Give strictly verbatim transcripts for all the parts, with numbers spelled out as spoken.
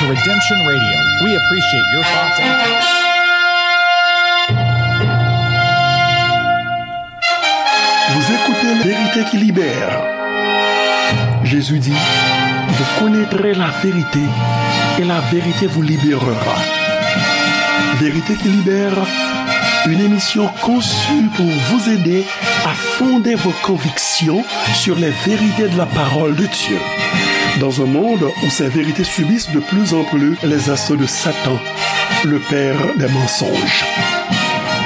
Redemption Radio. We appreciate your thoughts and Vous écoutez La Vérité qui libère. Jésus dit, vous connaîtrez la vérité et la vérité vous libérera. Vérité qui libère, une émission conçue pour vous aider à fonder vos convictions sur les vérités de la parole de Dieu. Dans un monde où ces vérités subissent de plus en plus les assauts de Satan, le père des mensonges.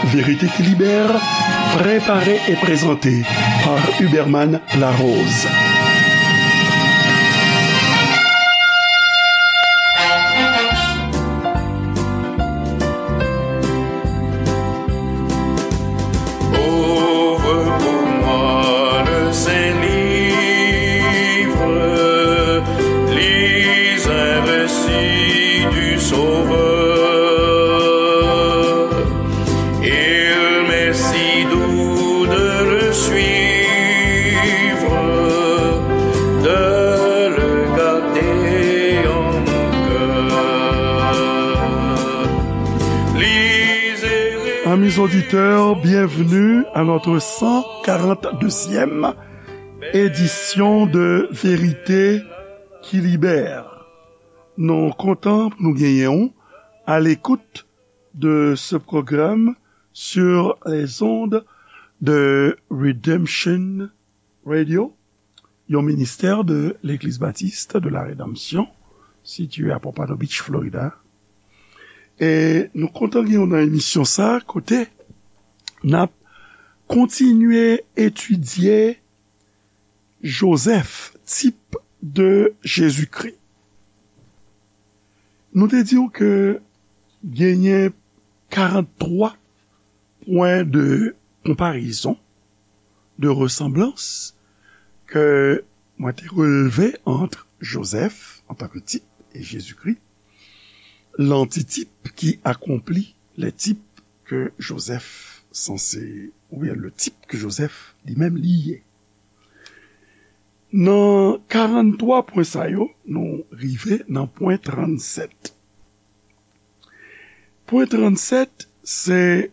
Vérité qui libère, préparée et présentée par Huberman Larose. Ouvre pour moi le Saint-Livre, lis un récit du Sauveur. Il m'est si doux de le suivre, de le garder en mon cœur. Lisez. Amis auditeurs, bienvenue à notre cent quarante-deuxième édition de Vérité qui libère. Nou kontan pou nou genyen w à l'écoute de ce programme sur les ondes de Redemption Radio, yon ministè de Legliz Batis de la Redanmsyon, sitiye a Pompano Beach, Florida. E nou kontan gen w nan emisyon sa a, kote n ap kontinye etidye Jozèf, tip de Jezikri. Nou te di w ke genyen karant twa pwen de konparezon, de resanblans, ke mwen te relve ant Jozèf antanke tip e Jezikri, lantitip ki akonpli lè tip ke Jozèf sanse, oubyen le tip ke Jozèf li menm li ye. Nan karant twa pwen sa yo, nou rive nan pwen trannsèt. Pwen trannsèt, se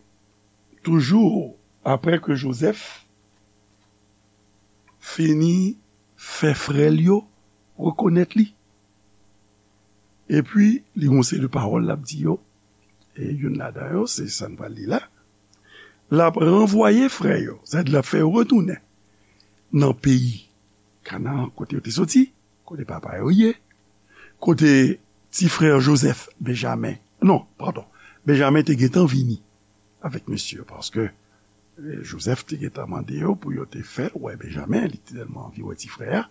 toujou apre ke Jozèf fini fè frè l yo rekonèt li. Epi, li gon seri de pawòl l ap di yo. E youn ladan yo, se sa n pral li la. L ap ranvwaye frè yo, sètadi l ap fè yo retounen nan peyi Kanaan, kote yo te soti, kote papa yo ye, kote ti frè Jozèf, Benjamen, non, padon, Benjamen te gentan vini avèk mesye yo, paske, eh, Jozèf te gentan mande yo pou yo te fè l wè Benjamen, li te tèlman anvi wè ti frè a.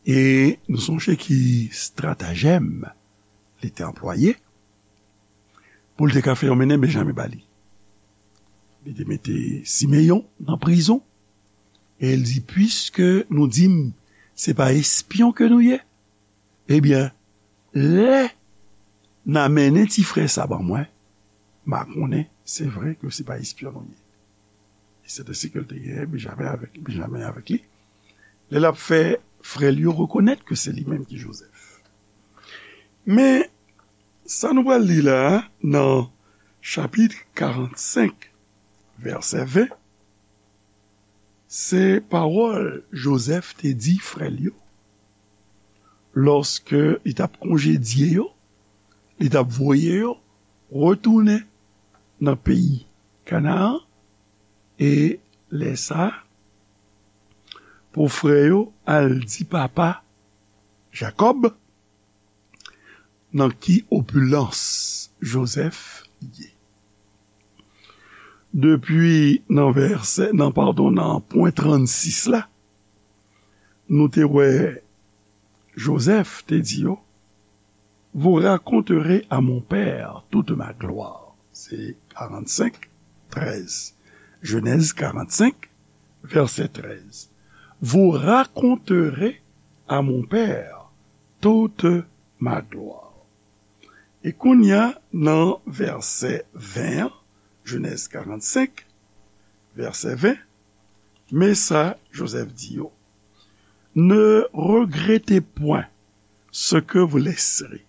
E nou sonje ki estratajèm li te anplwaye pou l te ka fè yo mennen Benjamen ba li. Li te mete Simeyon nan prizon, e l di, "Piske nou di m se pa espyon ke nou ye, ebyen, lè n a mennen ti frè sa ban mwen, m a konnen se vre ke se pa espyon nou ye." E se te si ke l te genyen Benjamen avèk, Benjamen avèk li. Lè l ap fè frè l yo rekonèt ke se li menm ki Jozèf. Men, sa nou pral li la a, nan chapit karannsenk, vèsè ven, se pawòl Jozèf te di frè l yo, lòske li t ap konjedye yo, li t ap voye yo retounen nan peyi Kanaan, e lè sa a, pou frè yo al di papa Jakòb nan ki opilans Jozèf ye. Depi nan vèsè, nan, padon, nan pwen trannsis la, nou te wè Jozèf te di yo, "Vous raconterez à mon père toute ma gloire." Se karannsenk, trèz. Jenèz karannsenk, vèsè trèz. "Vous raconterez à mon père toute ma gloire." E kounye a, nan vèsè ven an, Jenèz karannsenk, vèsè ven, men sa Jozèf di yo, "Ne regrettez point ce que vous laisserez,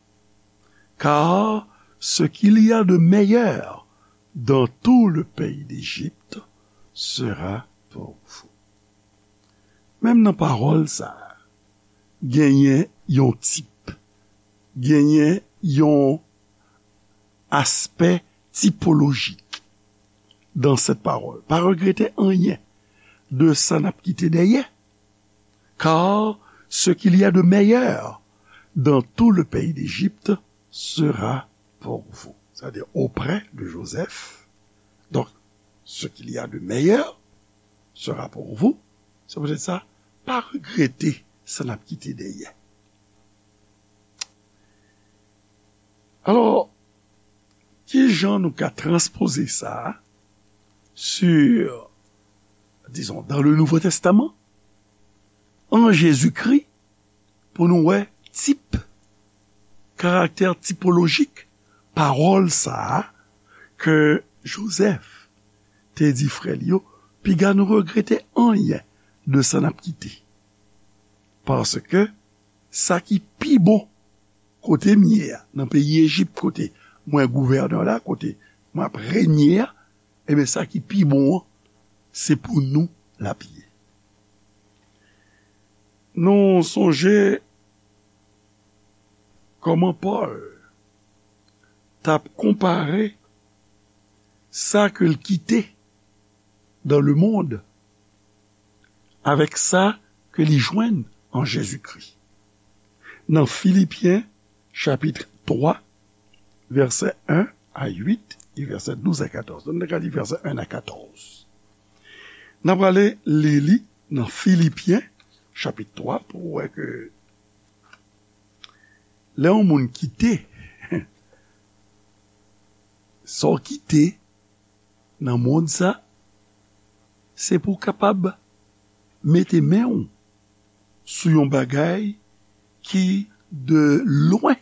car ce qu'il y a de meilleur dans tout le pays d'Égypte sera pour vous. Menm nan pawòl sa a, genyen yon tip, genyen yon aspè tipolojik dans cette parole. Pa regrete anyen de sa n ap kite dèyè, car ce qu'il y a de meilleur dans tout le pays d'Égypte sera pour vous. C'est-à-dire auprès de Joseph. Donc, ce qu'il y a de meilleur sera pour vous. Se poutèt sa, pa regrete sa n ap kite dèyè. Alò, ki jan nou ka transpoze sa sur, disons, dans le Nouveau Testament, en Jésus-Christ, pou nou wè tip, karaktè tipolojik pawòl sa a ke Jozèf te di frè l yo, piga nou regrete anyen de sa n ap kite. Paske sa ki pi bon kote m ye a, nan peyi Ejip, kote mwen gouvènè la, kote mwen ap renye a, ebyen, sa ki pi bon an, se pou nou l ap ye. Nou sonje kòman Pòl t ap konpare sa ke l kite dans le monde avèk sa ke li jwenn an Jezikri. Nan Filipyen, chapit twa, vèsè en a uit, e vèsè douz a katòz. Donk, nou ka li vèsè en a katòz. N ap prale li li nan Filipyen, chapit twa, pou w wè ke lè yon moun kite, sa w kite nan mond sa, se pou w kapab mete men w sou yon bagay ki de lwen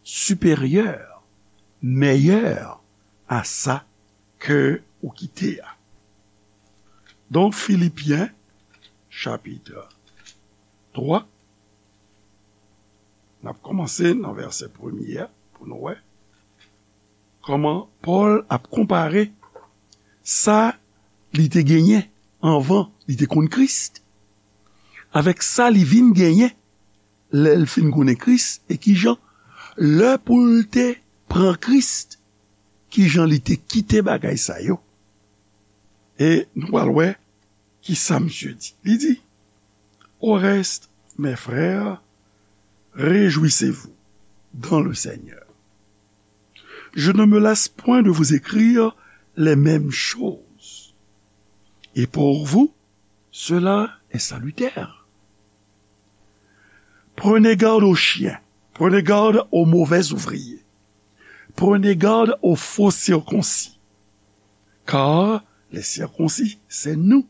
siperyè, mèyè a sa ke ou kite a. Donk, Filipyen, chapit twa, n ap kòmanse nan vèsè premye a pou nou wè kòman Pòl ap konpare sa li te genyen anvan li te konn Kris avèk sa li vin genyen lè l fin konnen Kris, e kijan, lè pou l te pran Kris, kijan li te kite bagay sa yo. E nou pral wè ki sa misye di. Li di, Au reste, mes frères, réjouissez-vous dans le Seigneur. Je ne me lasse point de vous écrire les mêmes choses. Et pour vous, cela est salutaire. Prenez garde aux chiens, prenez garde aux mauvais ouvriers, prenez garde aux faux circoncis. Car les circoncis, c'est nous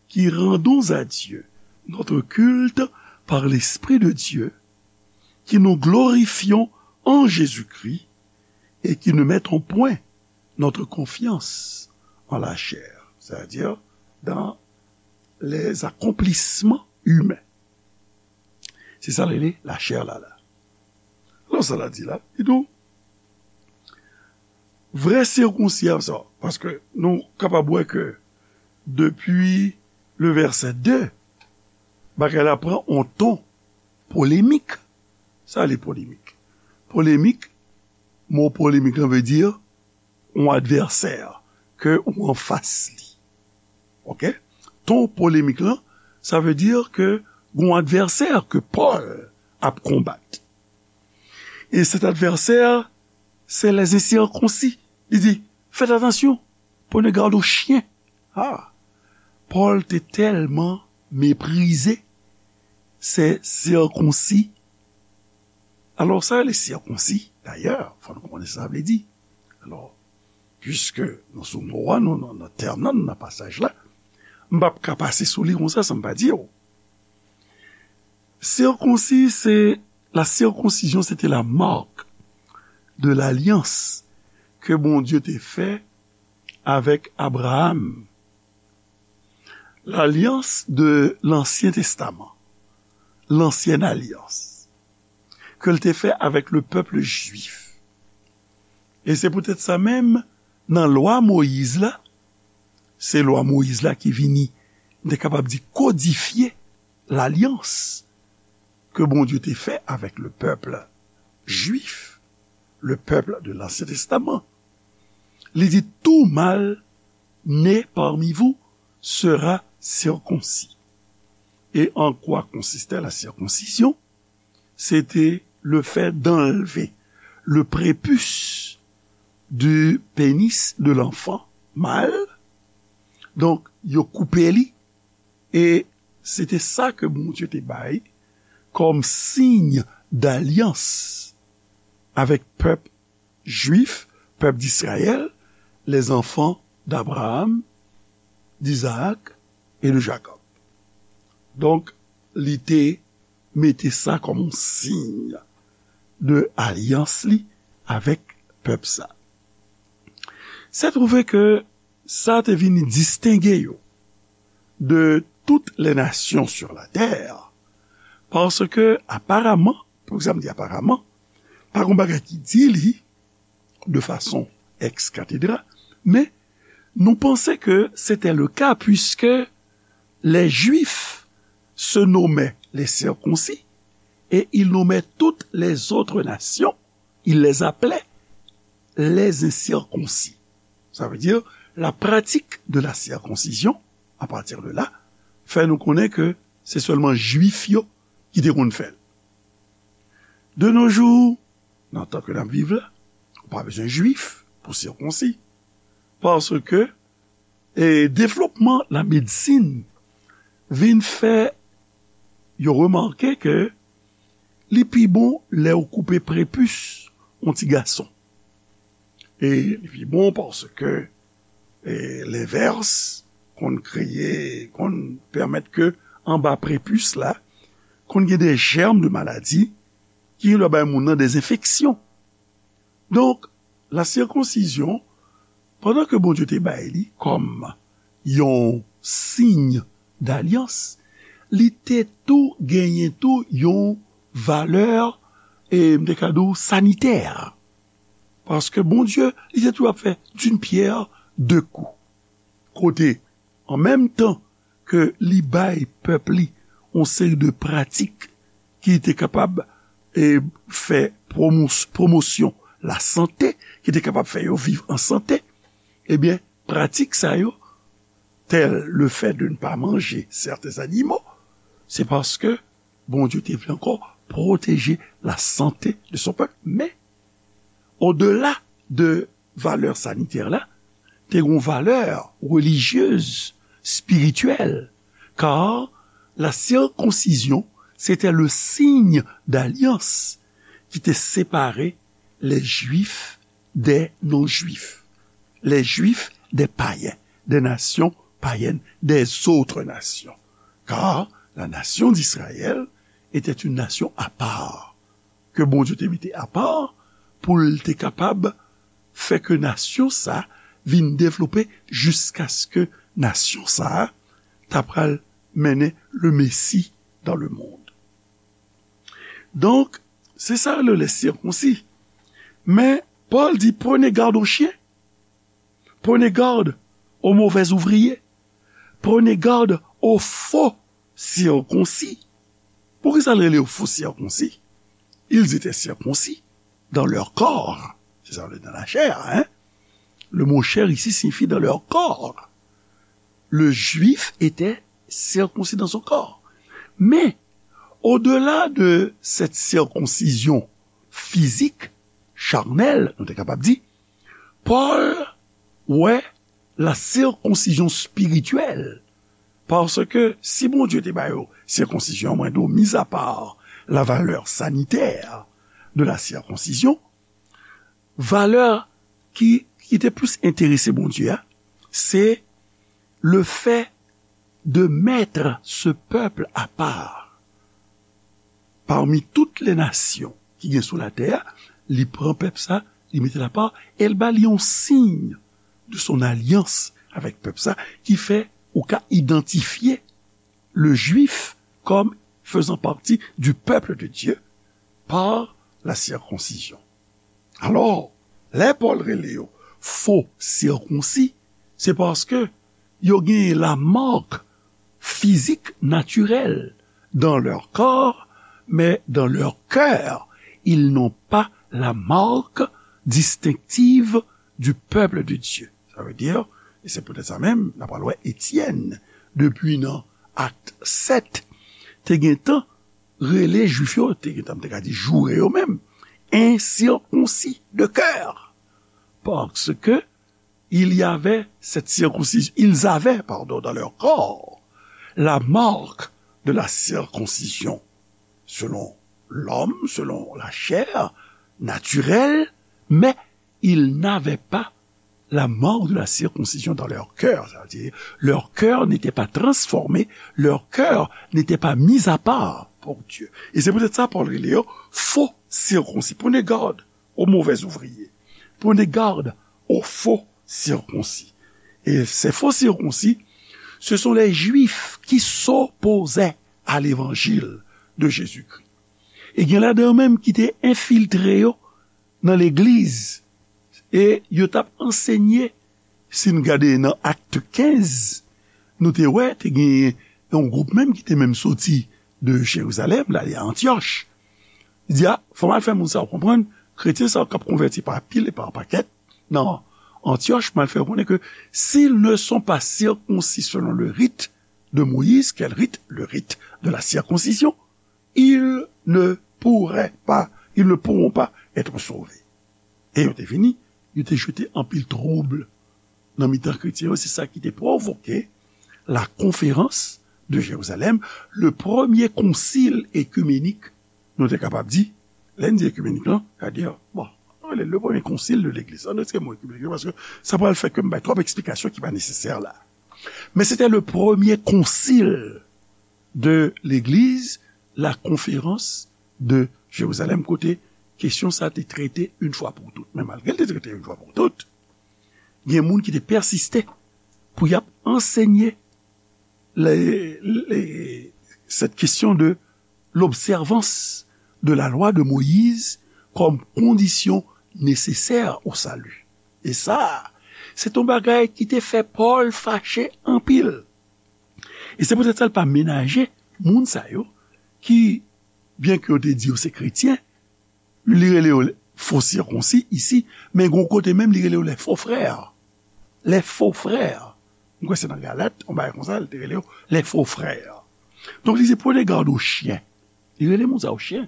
qui rendons à Dieu notre culte par l'Esprit de Dieu, qui nous glorifions en Jésus-Christ et qui ne mettons point notre confiance en la chair, c'est-à-dire dans les accomplissements humains. Se sa l rele lachè la la. Alò, sa l di la, li di w, vrè sikonsi a sa, paske nou kapab wè ke depi le vèsè de, bagay la pran yon ton polemik. Sa le polemik? Polemik, mo polemik lan vle di yon advèsè ke ou anfas li. Oke? Ton polemik lan, sa vle di ke gon advèsè ke Pòl ap konbat. E cet adversaire, c'est les incirconcis. Li di, faites attention, prenez garde aux chiens. Ah, Pòl te tèlman meprize se sikonsi. Alò, sa rele sikonsi, dayè, fò nou konnen sa sa vle di. Alò, piske nou sou mo a, nou nan, nan tèm nan, nou nan pasaj la, m p ap ka pase sou li konsa san m pa di w. Circoncis, c'est, la circoncision, c'était la marque de l'alliance que Bondye te fè avèk Abraham. L'alliance de l'Ancien Testament, l'ancienne alliance. ke l te fè avèk le pèp jwif. E se poutèt sa menm, nan lwa Moyiz la, se lwa Moyiz la ki vini, m te kapab di, kodifye lalyans ke Bondye te fè avèk le pèp jwif, le pèp de l'Ancien Testament. Li di, tout mâle né parmi vous sera circoncis. Et en quoi consistait la circoncision? C'était le fait d'enlever le prépuce du pénis de l'enfant mâle. Donk, yo koupe li, e se te sa ke Bondye te bay kòm siy dalyans avèk pèp jwif, pèp d'Israël, les enfants d'Abraham, d'Isaac et de Jacob. Donk, li te mete sa kòm yon siy de alyans li avèk pèp sa. Se twouve ke sa te vin distenge yo de toutes les nations sur la terre, paske aparaman, pou sa m di aparaman, pa gen bagay ki di li de fason ex cathedra, men nou panse ke se te le ka, puiske les Juifs se nommaient les circoncis et ils nommaient toutes les autres nations, ils les appelaient les incirconcis. Ça veut dire la pratique de la circoncision, à partir de là, fè nou konnen ke se sèlman Jwif yo ki te konn fè l. De nos jours, nan tan ke n ap viv la, ou pa bezwen Jwif pou sikonsi. Paske, e, devlopman lamedsin vin fè yo remake ke li pi bon lè ou koupe prepis yon ti gason. E li pi bon paske, e, lenvès konn kreye, konn pèmèt ke anba prepis la, konn gen de jèm de maladi ki gen dwa bay moun nan de enfeksyon. Donk, la sikonsizyon, pandan ke Bondye te bay li kòm yon siy dalyans, li te tou genyen tou yon valè, e m te ka di w, sanitè. Paske Bondye, li te tou ap fè d'une pierre deux coups. Kote, an menm tan ke li bay pèp li yon seri de pratik ki te kapab, e, fè pwomos-, pwomosyon lasante, ki te kapab fè yo viv an sante, ebyen, pratik sa yo, tèl le fè de ne pa manje sèten zanimo, se paske Bondye te vle ankò pwoteje lasante de son pèp. Men, odela de valè sanitè la, te gen yon valè relijyez, spirityèl, kar la sikonsizyon se te le siy dalyans ki te separe les Juifs des non-Juifs, les Juifs des païens, des nations païennes, des autres nations. Car la nation d'Israël était une nation à part, ke Bondye te mete apa pou l te kapab fè ke nasyon sa vin devlope jiskaske nasyon sa ta pral mennen le Messie dans le monde. Donk, se sa yo rele les circoncis. Men, Pòl di, prenez garde aux chiens, prenez garde aux mauvais ouvriers, prenez garde aux faux circoncis. Poukisa l rele yo fo sikonsi? Ils étaient circoncis dans leur corps. C'est ça, dans la chair, hein? Le mot chair ici signifie dans leur corps. Le juif était circoncis dans son corps. Mais, au-delà de cette circoncision physique, charnelle, nou te kapab di, Pòl wè la sikonsizyon espirityèl. Paske si Bondye te ba yo sikonsizyon, mwen di w, mis à part la valeur sanitaire de la circoncision, valè ki, ki te plis enterese Bondye a, se le fait de mettre ce peuple à part. Parmi toutes les nations ki gen sou latè a, li pran pèp sa, li mete l apa, e l ba li yon siy de son alyans avèk pèp sa, ki fè ou ka idantifye le juif comme faisant partie du peuple de Dieu, par la circoncision. Alò, lè Pòl rele yo fo sikonsi, se paske yo genyen la marque physique naturelle dans leur corps, mais dans leur cœur, ils n'ont pas la marque distinctive du peuple de Dieu. Sa vle di, e se poutèt sa menm, n ap pral wè Etyèn, depi nan Akt sèt, te gentan rele Jwif yo, te gentan, m te ka di, joure yo menm, insikonsi de kè. Parce que il y avait cette circoncision, ils avaient, pardon, dans leur corps la marque de la circoncision, selon l'homme, selon la chair naturelle, mais ils n'avaient pas la marque de la circoncision dans leur cœur. Ça veut dire, leur cœur n'était pas transformé, leur cœur n'était pas mis à part pour Dieu. Et c'est peut-être ça, Paul rele yo, fo sikonsi. Prenez garde aux mauvais ouvriers. Prenez garde aux faux circoncis. Et ces faux circoncis, ce sont les Juifs qui s'opposaient à l'évangile de Jésus-Christ. E gen ladan yo menm ki te enfiltre yo nan legliz. E yo t ap ansenye, si n gade nan Akt kenz, nou te wè, te gen yon gwoup menm ki te menm soti de Jerizalèm, l ale a Antyòch. Li di, a, fò m al fè moun sa yo konprann, kretyen sa yo k ap konvèti pa pil e pa pakèt nan Antyòch, m al fè yo konnen ke s'ils ne sont pas circoncis selon le rite de Moïse, quel rite? Le rite de la circoncision. Ils ne pourraient pas, ils ne pourront pas être sauvés. E yo te vini, yo te jete anpil twoub nan mitan kretyen yo. Se sa ki te pwovoke la conférence de Jérusalem, le premier concile œcuménique, nou te kapab di. Lè n di œcuménique lan, sa vle di, bon, nou rele le premier concile de l'église. Ann retire mo œcuménique yo, paske sa pral fè ke m bay twòp eksplikasyon ki pa nesesè la. Men se te le premier concile de l'église, la conférence de Jérusalem, kote kesyon sa te trete yon fwa pou tout. Men malgre l te trete yon fwa pou tout, gen moun ki te pèsiste pou y ap ansenye le, le, cette question de l'observance de la loi de Moïse comme condition nécessaire au salut. E sa, se t yon bagay ki te fè Pòl fache anpil. E se poutèt sa l pa menaje moun sa yo ki, byenke yo te di yo se kretyen, li rele yo fo sikonsi isi, men gon kote menm li rele yo les faux frères. Les faux frères. M kwè se nan Galat, yon bagay konsa, li te rele yo les faux frères. Donk, li di, prenez garde aux chiens. Li rele moun sa yo chen.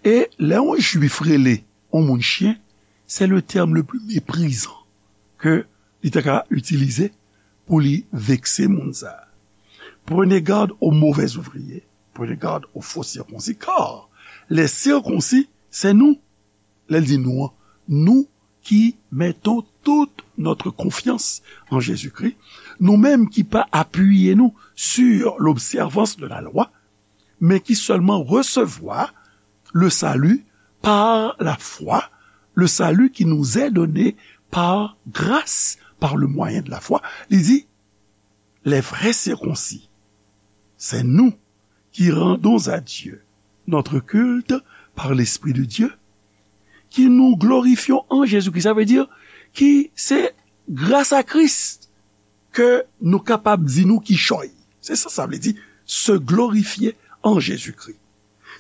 E lè yon Jwif rele yon moun chen, c'est le terme le plus méprisant ke li ta ka itilize pou li vekse moun sa a. Prenez garde aux mauvais ouvriers, prenez garde aux faux circoncis, car les circoncis, c'est nous. Lè l di nou an, nous qui mettons toute notre confiance en Jésus-Christ, nou menm ki pa apiye nou sur l'observance de la loi, mais qui seulement recevoir le salut par la foi, le salut qui nous est donné par grâce, par le moyen de la foi. Li di, les vrais circoncis, c'est nous qui rendons à Dieu notre culte par l'Esprit de Dieu, qui nous glorifions en Jésus-Christ. Sa vle di ki se gras a Kris ke nou kapab di nou kichòy. Se sa sa vle di, se glorifiye an Jezikri.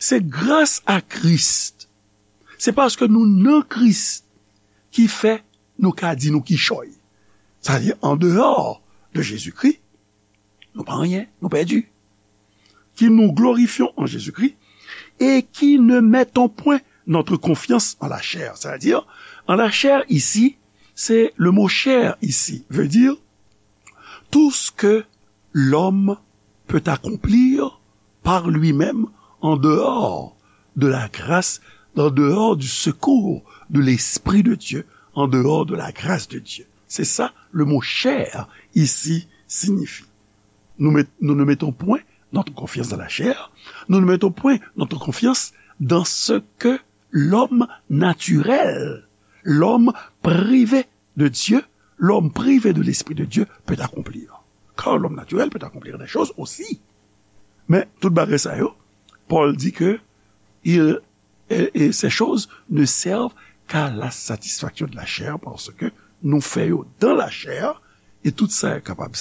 Se gras a Kris. Se paske nou nan Kris ki fè nou ka di nou kichòy. Sa vle di, an deyò de Jezikri, nou pa anyen, nou pèdi. Qui nous glorifions en Jésus-Christ et qui ne mettons point notre confiance en la chair. C'est-à-dire, en la chair, ici, c'est le mot chair ici, veut dire tout ce que l'homme peut accomplir par lui-même en dehors de la grâce, en dehors du secours de l'Esprit de Dieu, en dehors de la grâce de Dieu. C'est ça le mot chair ici signifie. Nous, met- nous ne mettons point notre confiance dans la chair, nous ne mettons point notre confiance dans ce que l'homme naturel, l'homme privé de Dieu, l'homme privé de l'Esprit de Dieu peut accomplir. Car l'homme naturel peut accomplir des choses aussi. Men tout bagay sa yo, Pòl di ke il Et, et ces choses ne servent qu'à la satisfaction de la chair, parce que nou fè yo dans la chair, et tout sa kapab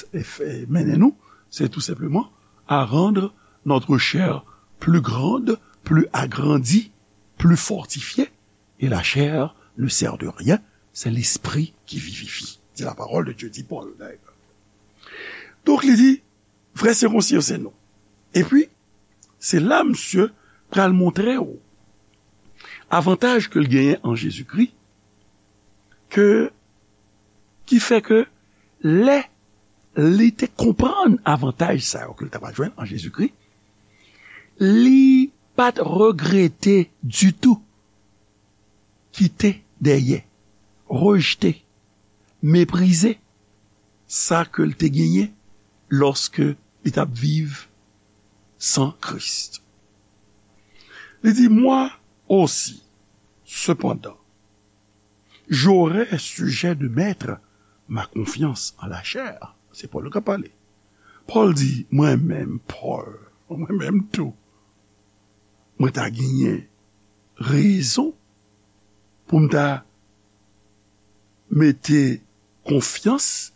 mennen nou, c'est tout simplement à rendre notre chair plus grande, plus agrandie, plus fortifiée, et la chair ne sert de rien, c'est l'esprit qui vivifie. C'est la parole de Dieu, dit Paul, d'ailleurs. Donk, li di, vrè sikonsidan se nou. Epi, se la misye pral montre w avantaj ke l genyen an Jezikri, ke, ki fè ke lè li te konprann avantaj sa yo ke l t ap jwenn an Jezikri, li pa t regrete ditou kite dèyè, rejte, meprize sa ke l te genyen lòske li t ap viv san Kris. Li di, moi aussi, cependant, j'aurai sujet de mettre ma confiance en la chair. Se Pòl k ap pale. Pòl di, mwen menm, Pòl, mwen menm tou, mwen ta genyen rezon pou m ta mete konfyans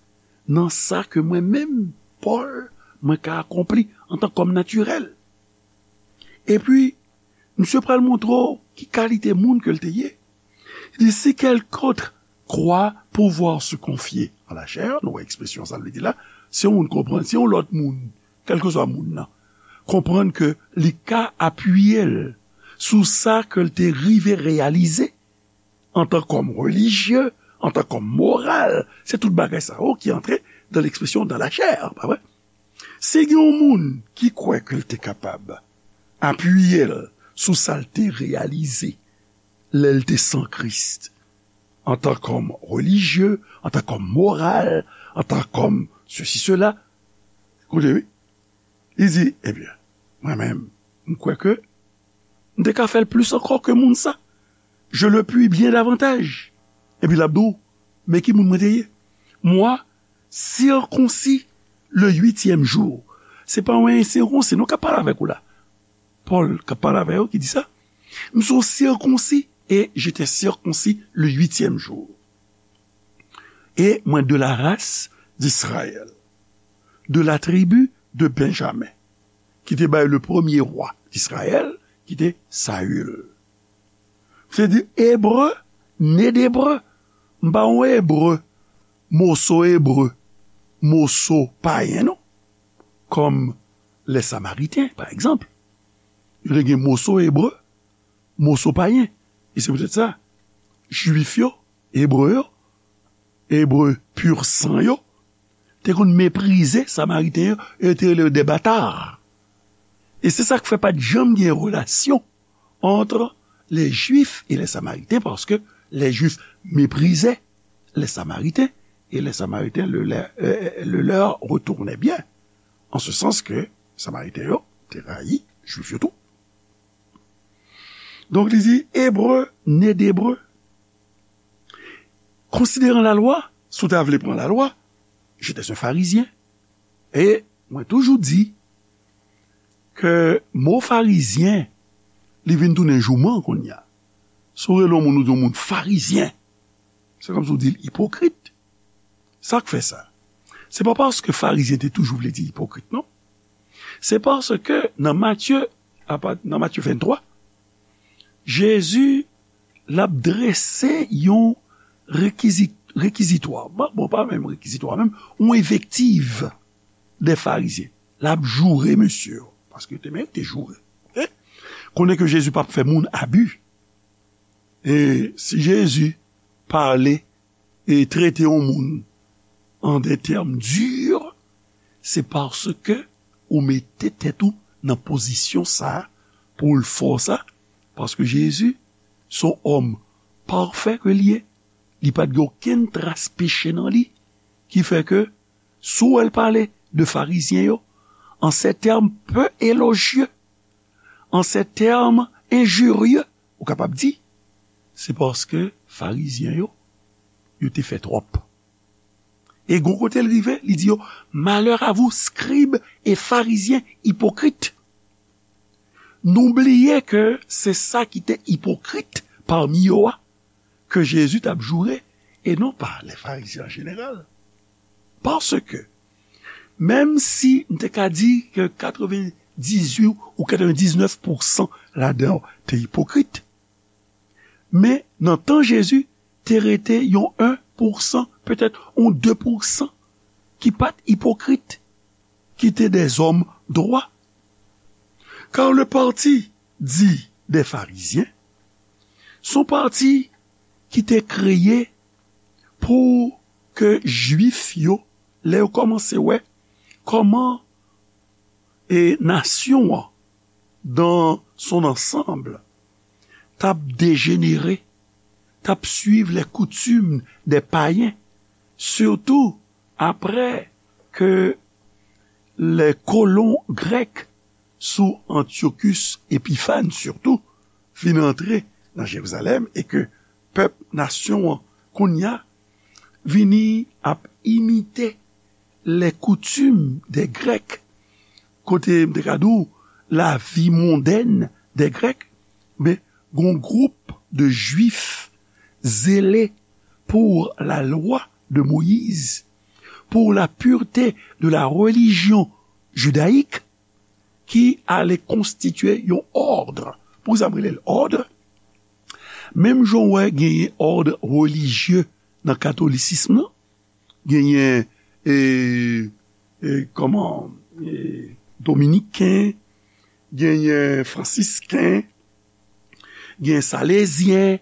nan sa ke mwen menm, Pòl, mwen ka akonpli antan kòm natirèl. Epi, misye pral montre w ki kalite moun ke l te ye. Li di, si quelqu'un croit pouvoir se confier à la chair, nou wè ekspresyon sa l vle di la, si yon moun konprann, si yon lòt moun, kèlkeswa moun nan, konprann ke li ka apiye l sou sa ke l te rive reyalize antan kòm relijye, antan kòm moral, se tout bagay sa yo ki antre dans l'expression dans la chair, pa vre? Si gen yon moun ki kwè ke l te kapab apiye l sou sa l te reyalize lè l te san Kris, antan kòm relijye, antan kòm moral, antan kòm sesi, sela, koute, wi, li di, ebyen, mwen menm, m kwè ke m te ka fè l plis ankò ke moun sa. Je le puis bien davantage. Epi l ap di w, men ki moun mwen te ye. Moi, circoncis le huitième jour. Se pa yon ensirkonsi, non, k ap pale avèk ou la. Pòl k ap pale avè yo ki di sa. M se yon sirkonsi, et j'étais circoncis le huitième jour. Et mwen de la race d'Israël, de la tribu de Benjamin, ki te bay le premye wa Izrayèl, ki te Sayil. Se di, ebre, ne d'ebre, m pa yon ebre, moso ebre, moso payen, non. Kòm lè Samariten, pa egzanp. Yo te gen moso ebre, moso payen. E se poutèt sa, Jwif yo, Ebre yo, Ebre pur sang yo, te konn meprize Samariten yo, e yo te rele yo des bâtards. E se sa k fè pa t janm gen relasyon entre les Juifs et les Samaritains, parce que les Juifs méprisaient les Samaritains, et les Samaritains le, le, euh, le leur retournaient bien. En ce sens que Samariten yo te rayi Jwif yo tou. Donk, li di, ebre, ne d'ebre. Konsideran lalwa, si w ta vle pran lalwa, j'étais un Pharisien. E mwen toujou di ke mo farizyen, li vin tounen jouman kounye a. Si w rele yon moun, ou di yon moun farizyen, se kòmsi w di l ipokrit. Sa k fè sa? Se pa paske farizyen te toujou vle di ipokrit, non. Se paske nan Matye, apa-, nan Matye venntwa, Jezi, l ap drese yon rekizi-, rekizitwa. Bon, bon, pa menm rekizitwa, menm, yon envektiv dè farizyen. L ap joure mesye yo, paske yo te merite joure. Oke? Konnen ke Jezi p ap fè moun abi. E si Jezi pale e trete yon moun an de tèm di, se paske ou mete tèt ou nan pozisyon sa a pou l fè w sa, paske Jezi se yon òm pafè ke l ye, li pa t gen okenn tras peche nan li, ki fè ke si w wè l pale de farizyen yo, an se tèm pe elojye, an se tèm enjirye, ou kapab di, se paske farizyen yo, yo te fè twòp. E gon kote l rive, li di yo, malheur à vous, scribes et pharisiens hypocrites. Nou bliye ke se sa ki te ipokrit pami yo a ke Jezi t ap joure, e non pa lè Farizyen an jeneral. Paske, menm si m te ka di ke katrevendizuit ou katrevendiznèf pousan ladan yo te ipokrit, men nan tan Jezi, te rete yon en pousan, petèt yon de pousan, ki pa t ipokrit, ki te dèzòm dwa. Car le parti dit des Pharisiens, se yon pati ki te kreye pou ke Jwif yo, lè yo kòmanse wè kòman e nasyon an, dans son ensemble, t ap dejenere, t ap suiv les coutumes des païens, sitou apre ke les colons grecs sou Antiochus Epiphan sitou fin antre nan Jerizalèm e ke pèp nasyon an kounye a vini ap imite les coutumes des Grecs, kote m te ka di w lavi mondèn des Grecs, men gon gwoup de Jwif zélés pour la loi de Moïse, pour la pureté de la religion judaïque, ki ale konstitye yon òd. Poukisa m rele l òd? Menm jan w wè genyen òd relijye nan katolisism nan, genyen, e, e, kòman, e, dominiken, genyen fransisken, genyen salezyen,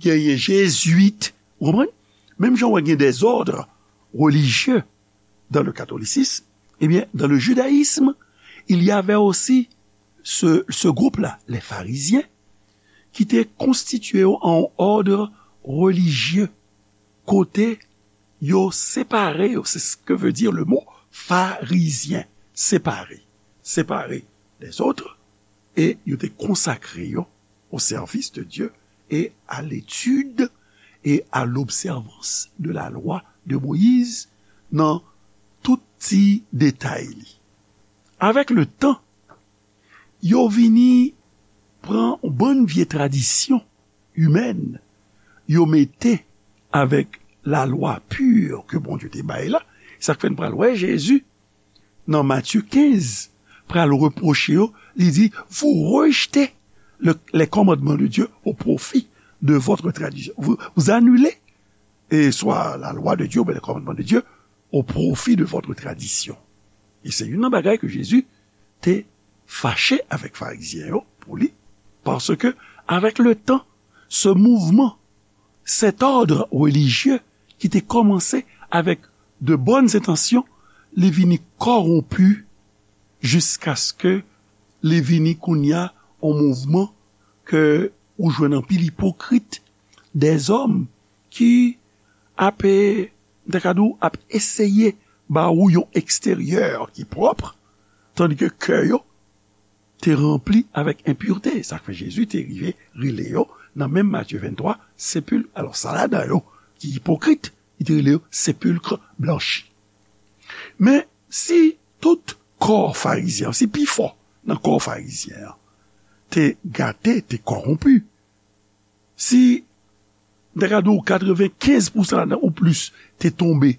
genyen jezwit, ou konprann? Menm jan w wè gen dèzòd relijye dans le catholicisme, eh bien, dans le judaïsme, il y avait aussi ce, ce groupe-là, les pharisiens, ki te konstitye yo an òd relijye, kote yo separe yo, c'est ce que veut dire le mot pharisien, séparé, séparé des autres, e yo te konsakre yo au service de Dieu et à l'étude et à l'observance de la loi de Moïse nan tout ti detay li. Avèk le tan, yo vini pran yon bann vye tradisyon imèn, yo mete avèk lalwa pi ke Bondye te bay la. Sa k fè n pral wè Jezi nan Matye kenz pral repwoche yo, li di, vous rejetez le, les commandements de Dieu au profit de votre tradition. Vous, vous annulez, et soit la loi de Dieu, ou bien les commandements de Dieu, au profit de votre tradition. E se youn nan bagay ke Jezi te fache avèk Farizyen yo pou li, paske avèk le tan, ce mouvement, cet ordre religieux ki te kòmanse avèk de bonnes intentions, li vini kòwonpi jiskaske li vini kounye a yon mouvman ke ou jwenn anpil ipokrit, dèzòm ki ap, m ta ka di w, ap eseye ba ou yon eksteryè ki pwòp, tandike kè yo te ranpli avèk enpirte. Sa k fè Jezi te rive rele yo, nan menm Matye venntwa, sepil-, alò, sa ladan yo ki ipokrit, li te rele yo sepilkre blanchi. Men, si tout kò Farizyen an, si pifò nan kò Farizyen an te gate, te kòwonpi, si, m ta ka di w, katrevenkenz pousan ladan ou plis te tonbe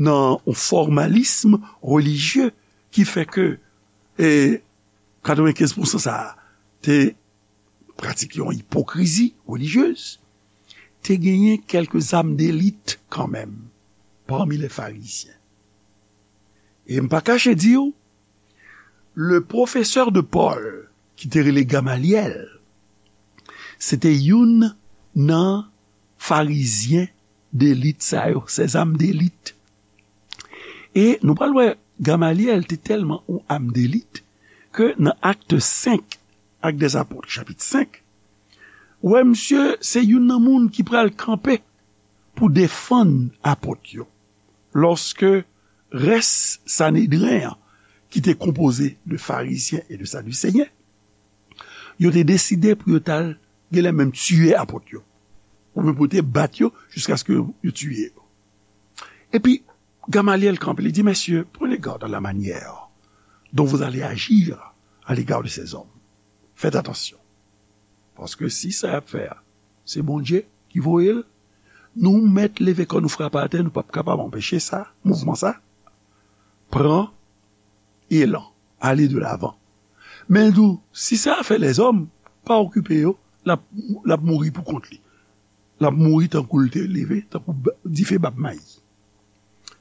nan yon fòmalism relijye ki fè ke, e, katrevenkenz pousan sa a te pratike yon ipokrizi relijyez, te genyen kèlke zam delit kanmenm pami lè Farizyen. E m pa kache di w, le professeur de Paul, ki te rele Gamalyèl, se te youn nan Farizyen delit sa yo, ces âmes d'élites. E nou pral wè Gamalyèl te tèlman yon âme d'élite ke nan Actes cinq, Actes des Apôtres, chapit senk, ou wè misye se youn nan moun ki pral kanpe pou defann apot yo. Lòske rès Sanedren an, ki te konpoze de Farizyen e de Sadiseyen, yo te deside pou yo t al genlè menm tiye apot yo, oubyen pou yo te bat yo jiskaske yo tiye yo. Epi, Gamalyèl kanpe, li di, messieurs, prenez garde à la manière dont vous allez agir à l'égard de ces hommes. Fèt atansyon. Paske si sa y ap fè a, se Bondye ki voye l, nou mèt leve kò nou frape atè, nou p ap kapab anpeche sa, mouvman sa. Pran elan, ale de lavan. Men l di w, si se afè lèzòm, pa okipe yo, l ap, l ap mouri pou kont li. L ap mouri tankou l te leve, tankou dife bab mayi.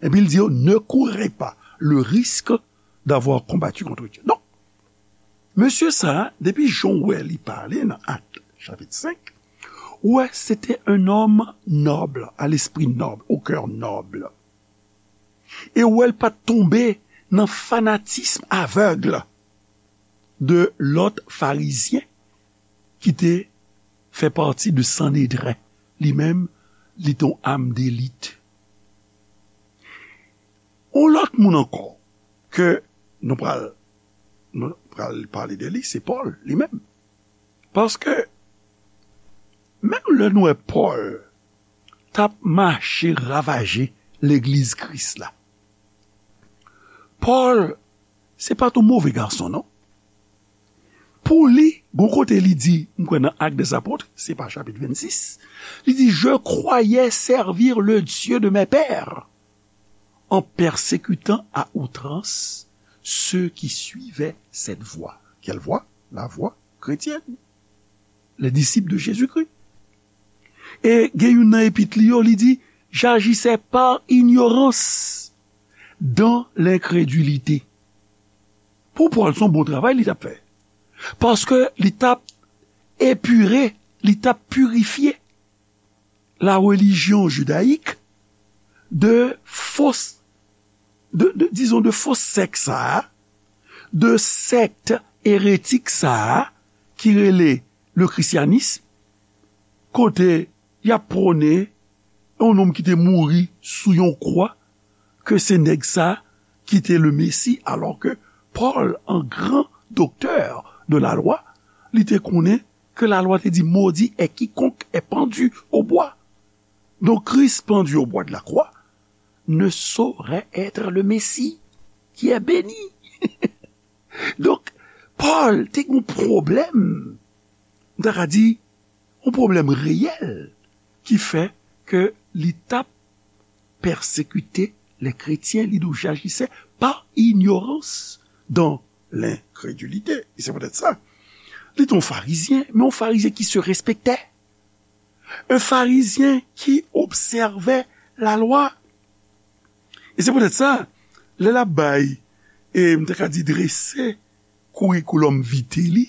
Epi l di yo, ne courez pas le risque d'avoir combattu contre Dieu. Donk, mesye sa a, depi jan w wè li pale nan Ak chapit senk, ou wè se te un homme noble, à l'esprit noble, au cœur noble. E ou wè l pa t tonbe nan fanatism avèg de lòt farizyen ki te fè pati de Sanedren. Li menm, li te yon am delit. Yon lòt moun ankò ke nou pral, nou pral pale de li, se Pòl li menm. Paske, menm lè nou wè Pòl t ap mache ravaje legliz Kris la, Pòl, se pa t yon move gason, non. Pou li, gon kote li di, m kwè nan Actes des Apôtres, se pa chapit vennsis, li di, je croyais servir le Dieu de mes pères en persécutant à outrance ceux qui suivaient cette voie. Quelle voie? La voie chrétienne. Les disciples de Jésus-Christ. E gen youn nan epit li yo, li di, j'agissais par ignorance dans l'incrédulité. Pou Pòl, se yon bon travay li t ap fè. Paske li t ap epire, li t ap pirifye la religion judaïque de fos, de, de, dizon, de fo sèk sa a, de sèkt eretik sa a, ki rele le christianisme, kote y ap pwone yon nonm ki te mouri sou yon kwa, ke se nèg sa ki te le Mesi, alò ke Pòl, an gran doktè de la lwa, li te konnen ke la lwa te di, maudit est quiconque est pendu au bois. Donc, Christ pendu au bois de la croix ne saurait être le Messie qui est béni. Donk, Pòl te gen yon pwoblèm, m ta ka di, yon pwoblèm reyèl ki fè ke li t ap pèsekite lè kretyen, li di w, j'agissais par ignorance dans l'incrédulité. E se poutèt sa, li te yon farizyen, men yon farizyen ki se respectait. Un Pharisien qui observait la loi. E se poutèt sa, lè l ap bay, e m ta ka di drese curriculum vitae li,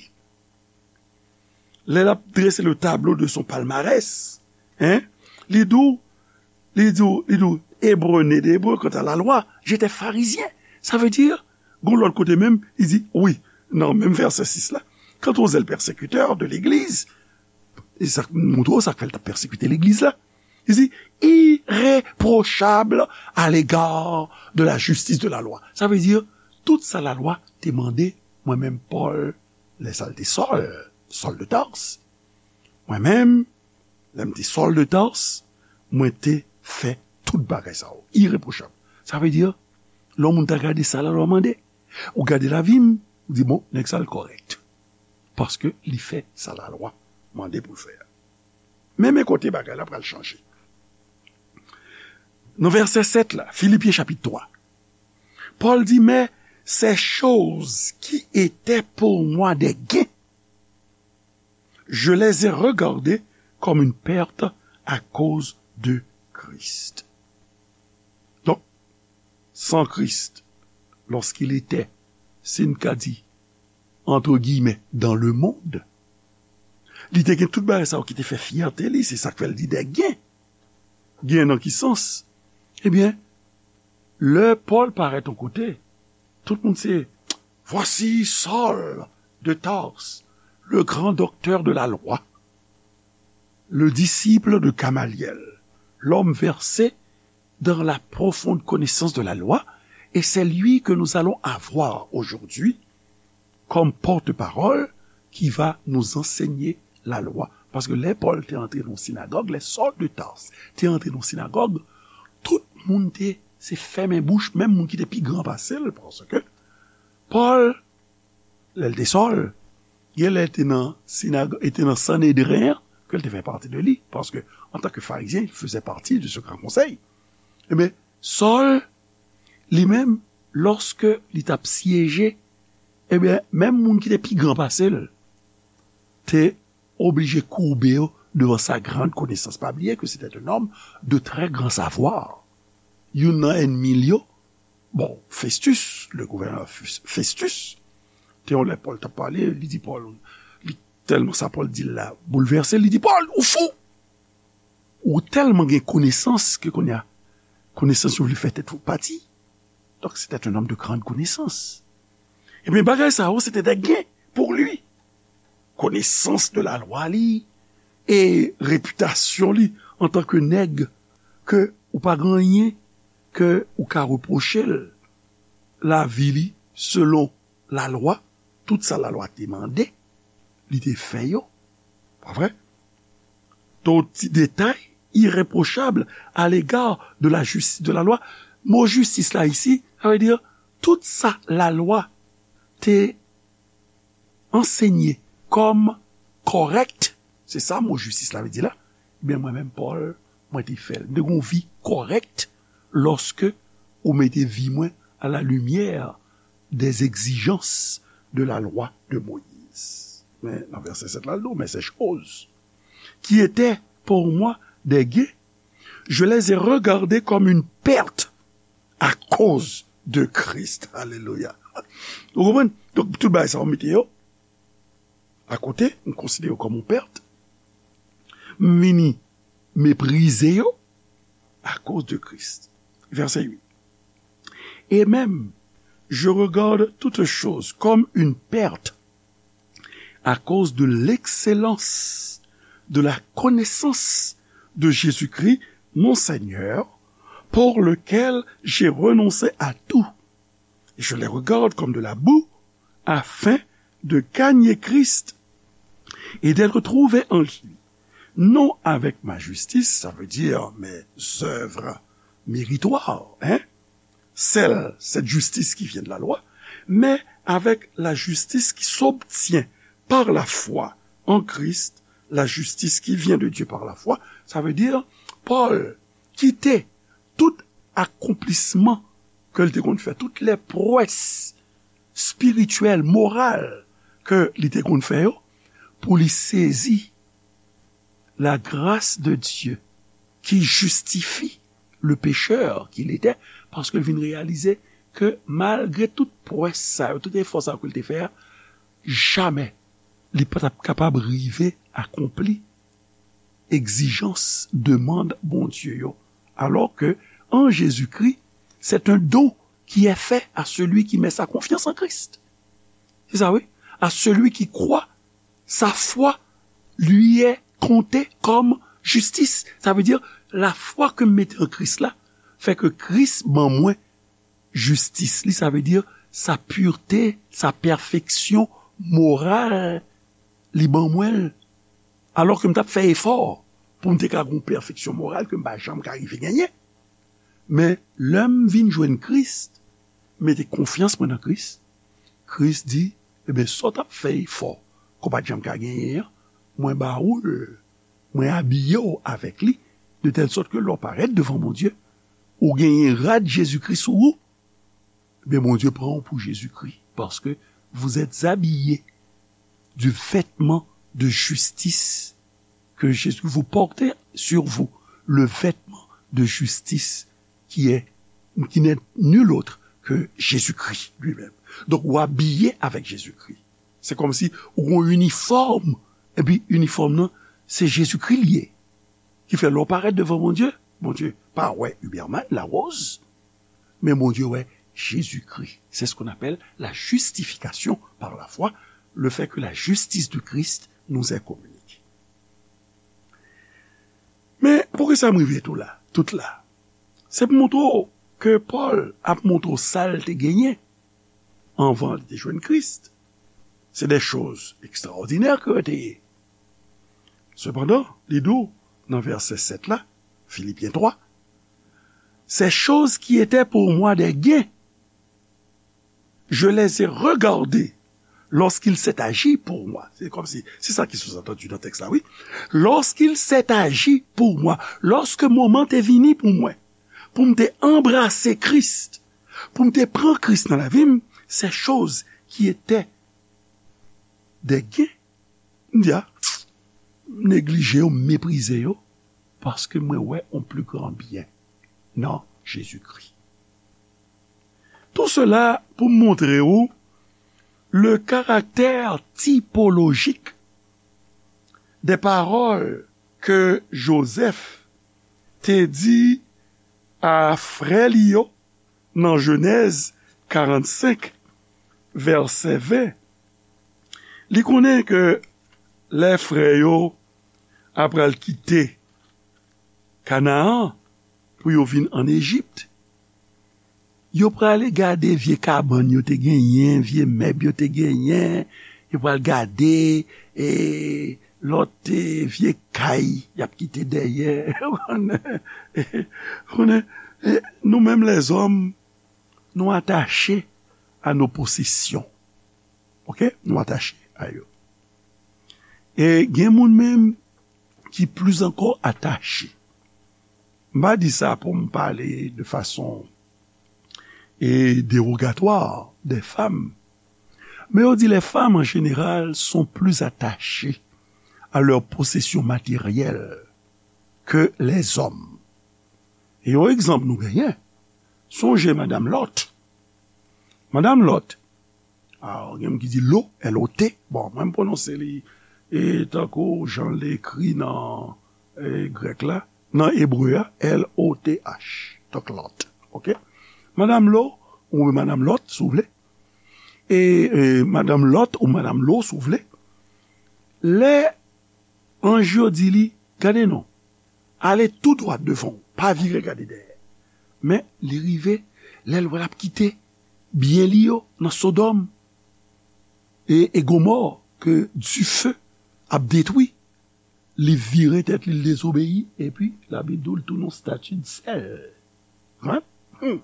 lè l ap drese le tableau de son palmarès, hein, li di w, li di w, li di w, Hébreu né d'hébreu, quant à la loi, j'étais pharisien. Sa vle di, gon lòt kote menm, li di, wi, nan menm vèsè sis la, quant aux zèles persécuteurs de l'Église, e sa k montre w sa k fè l t ap pèsekite legliz la. Li di, irréprochable à l'égard de la justice de la loi. Sa vle di, tout sa lalwa te mande, mwen menm Pòl, lè sa l te Sòl, Sòl de Tars. Mwen menm, lè m te Sòl de Tars, mwen te fè tout bagay sa yo. Irréprochable. Sa vle di, lè yon moun ta gade sa lalwa mande, ou gade lavi m, ou di, bon, nèg sa l kòrèk. Paske li fè sa lalwa mande pou l fè a. Men, men kote bagay la pral chanje. Nan vèsè sèt la, Filipyen chapit twa, Pòl di, mais ces choses qui étaient pour moi des gains, je les ai regardées comme une perte à cause de Christ. Donk, san Kris, lorsqu'il était, si n ka di, entre guillemets, dans le monde, li te gen tout bagay sa yo ki te fè fyète li, se sa k fè l di des gains. Gain nan ki sans? Ebyen, lè Pòl parèt yon kote, tout moun se, voici Saul de Tarse, le grand docteur de la loi, le disciple de Gamaliel, l'homme versé dans la profonde connaissance de la loi, et c'est lui que nous allons avoir aujourd'hui comme porte-parole qui va nous enseigner la loi. Paske lè Pòl te antre nan sinagòg, lè Sòl de Tars te antre nan sinagòg, tout moun te se fèmen bouch, menm moun ki te pi gran pase l, paske Pòl, lè l te Sòl, Genlè te nan sinag-, e te nan Sanedren an, ke l te fè pati de li, paske, antanke Farizyen, il faisait partie de ce grand conseil. Ebyen, Sòl, li menm, lòske li t ap syeje, ebyen, menm moun ki te pi gran pase l, te oblije koube yo devan sa grande connaissance. Pa bliye ke c'était un homme de très grand savoir. Youn nan ènmi l yo, bon, Festus, le gouverneur Fes-, Festus, te yon lè Pòl t ap pale, li di Pòl, li tèlman sa Pòl di l la boulvèse, li di, Pòl, ou fou! Ou tèlman gen konesans ke kounye a, konesans yo vle fè tèt ou pati. Donc, c'était un homme de grande connaissance. Ebyen, bagay sa yo, se te de gen pou li. Konesans de lalwa li e repitasyon li antanke nèg ke ou pa gen anyen ke ou ka repwoche l. Lavi li selon lalwa, tout sa lalwa te mande, li te fè yo. Pa vre? Tout ti detay irreprochable à l'égard de la justice de la loi. Mo jistis la isi, sa vle di tout sa lalwa te ansenye kòm kòrèk, se sa mo jistis la vle di la, ebyen mwen menm Pòl, mwen te fè l. M te gen yon vi kòrèk lòske ou mete vi mwen à la lumière des exigences de la loi de Moïse. Men nan vèsè sèt la, l di w, mais ces choses qui étaient pour moi des gains, je les ai regardées comme une perte à cause de Christ. Alelouya. Ou konprann? Donk, tout bagay sa yo mete yo akote, m konsidere yo kòm yon pèt. M vini meprize yo à cause de Christ. Verset huit. Et même, je regarde toutes choses comme une perte à cause de l'excellence de la connaissance de Jésus-Christ, mon Seigneur, pour lequel j'ai renoncé à tout. Et je les regarde comme de la boue, afin de gagner Christ et d'être trouvé en lui, non avec ma justice, ça veut dire mes œuvres méritoires, hein, celle, cette justice qui vient de la loi, mais avec la justice qui s'obtient par la foi en Christ, la justice qui vient de Dieu par la foi, ça veut dire Pòl kite tout akonplisman ke l te konn fè, tout lè pwès espirityèl, moral ke li te konn fè yo, pou li sezi la grâce de Dieu qui justifie le pécheur qu'il était, paske l vin reyalize ke malgre tout pwès sa yo, tout efò sa yo ke l te fè a, jamè li pa t ap kapab rive akonpli egzijans, demann Bondye yo. Alors que en Jésus-Christ, c'est un don qui est fait à celui qui met sa confiance en Christ. C'est ça, oui. À celui qui croit, sa foi lui est comptée comme justice. Ça veut dire, la foi ke m mete an Kris la, fè ke Kris ban mwen jistis li, sa vle di sa purte, sa pèfeksyon moral, li ban mwen l. Alò ke m t ap fè efò pou m te ka gen yon pèfeksyon moral ke m pa janm ka rive genyen. Men lè m vin jwenn Kris, m mete konfyans mwen nan Kris, Kris di, ebyen, sa w t ap fè efò ke w pa t janm ka genyen an, mwen ba ou l, mwen abiye w avèk li, de tèl sòt ke lè w parèt devan Bondye, ou genyen rad Jezikri sou ou, ebyen, Bondye pran w pou Jezikri, paske vous êtes habillés du vêtement de justice que Jésus, vous portez sur vous le vêtement de justice qui est, qui n'est nul autre que Jésus-Christ lui-même. Donk, ou abiye avèk Jezikri. Se kòmsi ou gen yon inifòm, epi inifòm nan, se Jezikri l ye. Ki fè lè w parèt devan Bondye, Bondye pa wè Huberman Larose, men Bondye wè Jezikri. C'est ce qu'on appelle la justification par la foi, le fait que la justice de Christ nous est communiquée. Men poukisa m rive tou la, tout la? Se pou montre w ke Pòl ap montre w sa l te genyen anvan li te jwenn Kris. Se de choz ekstraòdinè ke yo te ye. Sepandan, li di w nan vèsè sèt la, Filipyen twa, ces choses qui étaient pour moi des gains, je les ai regardées Lorsqu'il s'est agi pour moi. C'est comme si, c'est ça qui sous-entendu dans le texte-là, oui. Lorsqu'il s'est agi pour moi, lòske moman te vini pou mwen, pou m te anbrase Kris, pou m te pran Kris nan lavi m, ces choses qui étaient des gains, m di a, m neglije yo, m meprize yo, paske mwen wè yon pli gran byen nan Jezikri. Tout cela pou m montre w le caractère typologique des paroles ke Jozèf te di a frè li yo nan Jenèz karannsenk, vèsè ven. Li konnen ke lè frè yo apral kite Kanaan pou yo vin ann Ejip, yo prale gade vye kabann yo te genyen, vye mèb yo te genyen, yo pral gade, e, lòt, e, vye kay y ap kite dèyè. Ou konnen, e, nou menm lèzòm, nou atache a nos possessions. Oke? Nou atache a yo. E gen moun menm ki plis ankò atache. M pa di sa pou m pale de fason, e, dérogatoire des femmes. Mais on dit les femmes en général sont plus attachées à leurs possessions matérielles que les hommes. E yon egzanp nou genyen, sonje madanm Lòt. Madanm Lòt, a, gen moun ki di Lo, L O T. Bon, mwen m pwononse li, e, tankou jan l ekri nan, e, grèk la, nan ebre a, L O T H. Donk Lòt. Oke? Madanm Lo, oubyen madanm Lòt, si w vle. E, e, madanm Lòt ou madanm Lo, si w vle. Lè anj yo di li, gade non, ale tou dwat devan w, pa vire gade dèyè. Men li rive, lè l wè l ap kite byen li yo nan Sodòm e, e Gomò ke dife ap detwi, li vire tèt li, l dezobeyi, epi Labib di w l tounen yon stati de sèl. Hein? Hmm.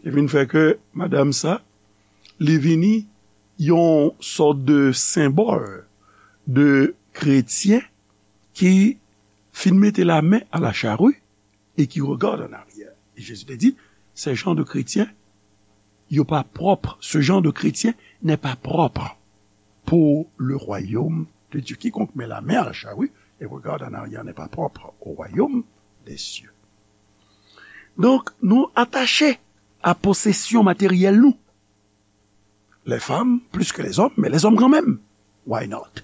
Ki vin fè ke madanm sa, li vini yon sòt de senbòl de kretyen ki fin mete la main à la charrue et qui regarde en arrière. E Jezi te di, ces gens de chrétiens, yo pa pwòp. Ce genre de chrétien n'est pas propre pour le royaume de Dieu. Quiconque met la main à la charrue et regarde en arrière n'est pas propre au royaume des cieux. Donk, nou atache a posesyon materyèl nou. Les femmes plus que les hommes, mais les hommes quand même. Why not?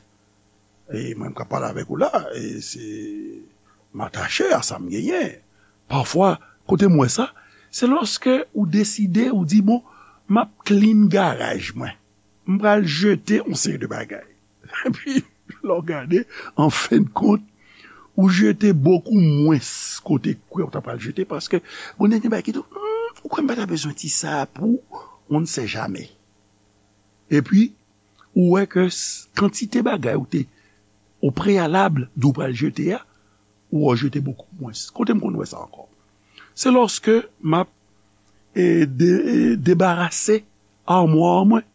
E mwen, m ka pale avèk ou la, e se, m atache a sa m genyen. Pafwa, kote m wè sa, se lòske ou deside, ou di, bon, m ap clean garaj mwen. M pral jete yon seri de bagay. Epi, lè w gade, an fen de kont, ou jete bokou mwens kote kwè w ta pral jete, paske, bon, gen bagay ki tou, hmm, ou kwè m pa ta bezwen ti sa pou, on ne sait jamais. Epi, ou wè ke s-, kantite bagay ou te, o preyalab, di w pral jete a, ou wè w jete bokou mwens. Kote m konn wè sa ankò? Se lòske m ap, e, de-, e, debarase amwa mwen.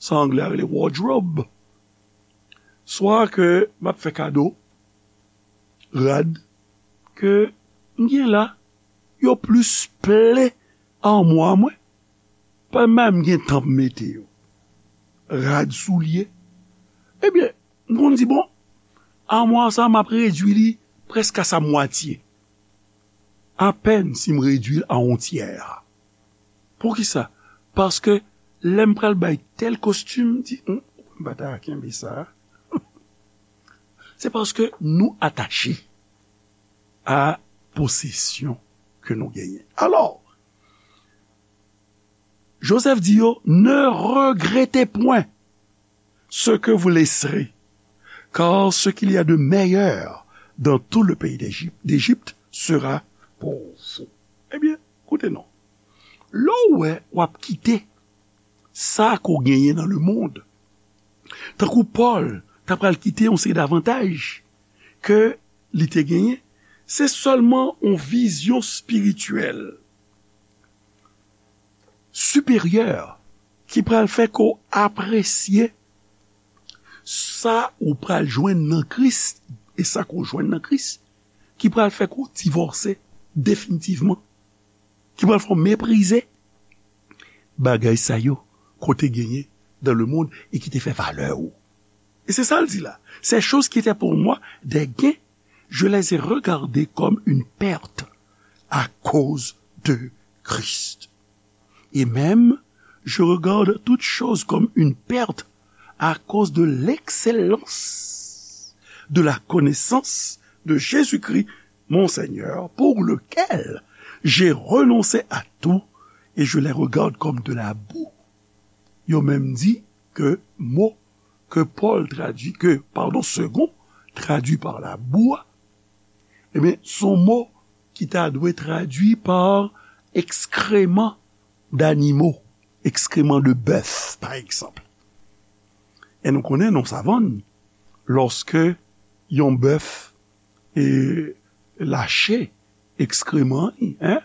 Sa anglè a rele wardrobe. Swa ke m ap fè kado rad ke m gen la, yo plis plen amwa mwen, pa menm gen tan pou mete yo. Rad, soulye. Ebyen, m konn di, bon, amwa sa, m ap redui li prèske a sa mwatye. Apèn si m redui l a yon tyè. Poukisa? Paske lè m pral bay tèl kostim, m di, "Hum, m pa ta kenbe sa." Se paske nou atache a posesyon ke nou genyen. Alò, Jozèf di yo, ne regrettez point ce que vous laisserez, car ce qu'il y a de meilleur dans tout le pays d'Égypte, d'Égypte sera pour vous. Ebyen, koute non. Lè w wè w ap kite sa ke w genyen nan lemonn, tankou Pòl, ta pral kite yon seri davantaj ke li te genyen, se sèlman yon vizyon espirityèl siperyè ki pral fè ke w apresye Sa ou pral jwenn nan Kris, e sa ke w jwenn nan Kris, ki pral fè ke w divòse definitivman, ki pral fè w meprize bagay sa yo ke w te genyen dans le monde e ki te fè valè w. E se sa l di la. Ces choses qui étaient pour moi des gains, je les ai regardées comme une perte à cause de Christ. Et même, je regarde toutes choses comme une perte à cause de l'excellence de la connaissance de Jésus-Christ, mon Seigneur, pour lequel j'ai renoncé à tout et je les regarde comme de la boue. Yo menm di ke mo ke Pòl tradui, ke, padon, Segond tradui pa labou a, ebyen, se yon mo ki ta dwe tradui pa ekskreman danimo, ekskreman de bèf, pa egzanp. E nou konnen nan savann, lòske yon bèf e lache ekskreman li, en,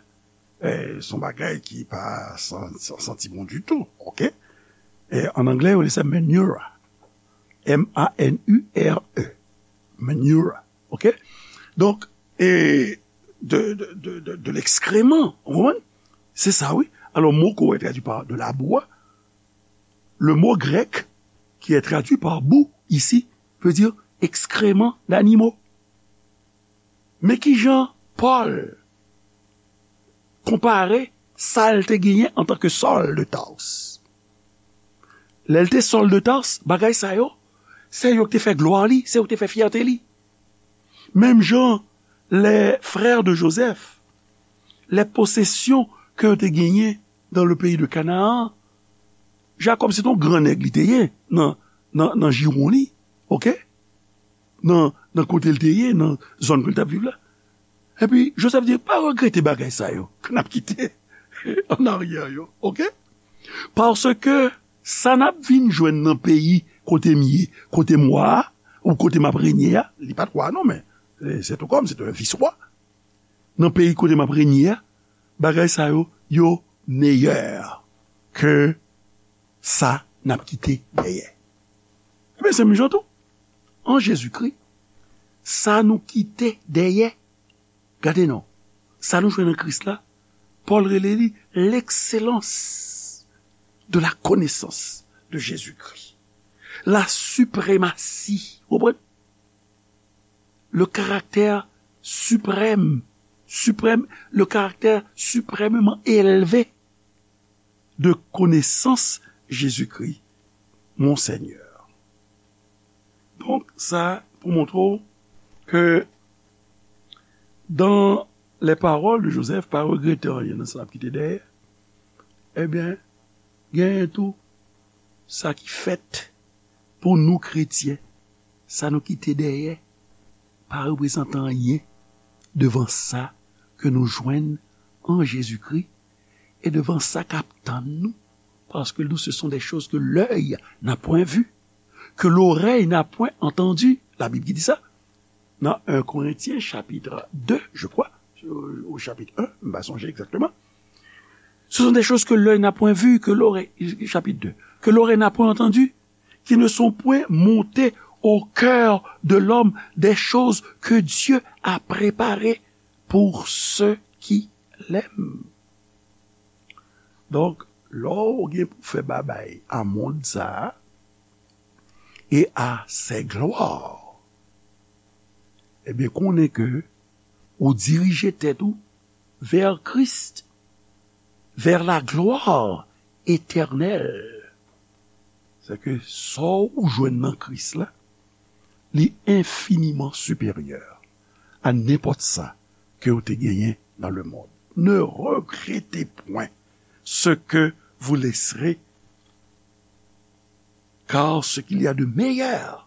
e, se yon bagay ki pa san, san santi bon ditou, oke? E, an anglè, yo rele sa manure. M A N U R E. Manure, oke? Donk, e, de, de, de, de, de l'excrément, ou konprann? Se sa, wi. Alò, mo ke w wè tradui pa de labou a, le mot grec qui est traduit par boue ici veut dire excrément d'animaux. Men kijan Pòl konpare sa l te genyen antanke Sòl de Tars. Lè l te Sòl de Tars, bagay sa yo, se yo ki te fè glwa li, se yo ki te fè fyète li. Menm jan les frères de Joseph, les possessions ke yo te genyen dans le pays de Canaan, Jakòb se te yon gran nèg li te ye nan, nan, nan jiwon li, oke? Nan, nan kote l te ye, nan zòn ke l t ap viv la. Epi Joseph di, pa regrete bagay sa yo ke n ap kite an aryè yo, oke? Paske sa n ap vin jwenn nan peyi kote m ye, kote m wa a, ou kote m ap renye a, li pa t wa non, men se, se tou kòm, se te yon vis wa. Nan peyi kote m ap renye a, bagay sa yo, yo meyè ke sa n ap kite dèyè. Ebyen, se menm jan tou. An Jezikri, sa nou kite dèyè, gade non, sa nou jwenn an Kris la, Pòl rele li l'excellence de la connaissance de Jésus-Christ. La suprématie, ou konprann? Le caractère suprême, suprême, le caractère suprêmement élevé de connaissance Jésus-Christ, mon Seigneur. Donk, sa pou montre w ke dans les paroles de Joseph, pa regrete anyen nan sa n ap kite dèyè, ebyen, genyen tou sa ki fèt pou nou kretyen, sa nou kite dèyè, pa reprezante anyen devan sa ke nou jwenn an Jezikri e devan sa k ap tann nou. Parce que nous, ce sont des choses que l'œil n'a point vues, que l'oreille n'a point entendues. La Bib ki di sa. Nan un Corinthiens chapitre deux, je crois, au chapitre un, m pa sonje egzakteman. Ce sont des choses que l'œil n'a point vues, que l'oreille, chapitre deux, que l'oreille n'a point entendues, qui ne sont point montées au cœur de l'homme, des choses que Dieu a préparées pour ceux qui l'aiment. Donk, lè w gen pou fè babay a mond sa a, et à ses gloires, ebyen, konnen ke ou dirije tèt ou vers Christ, vers la gloire éternelle. Se ke sa w jwenn nan Kris la, li enfiniman siperyè a nenpòt sa ke w te genyen dans le monde. Ne regrettez point ce que vous laisserez, car ce qu'il y a de meilleur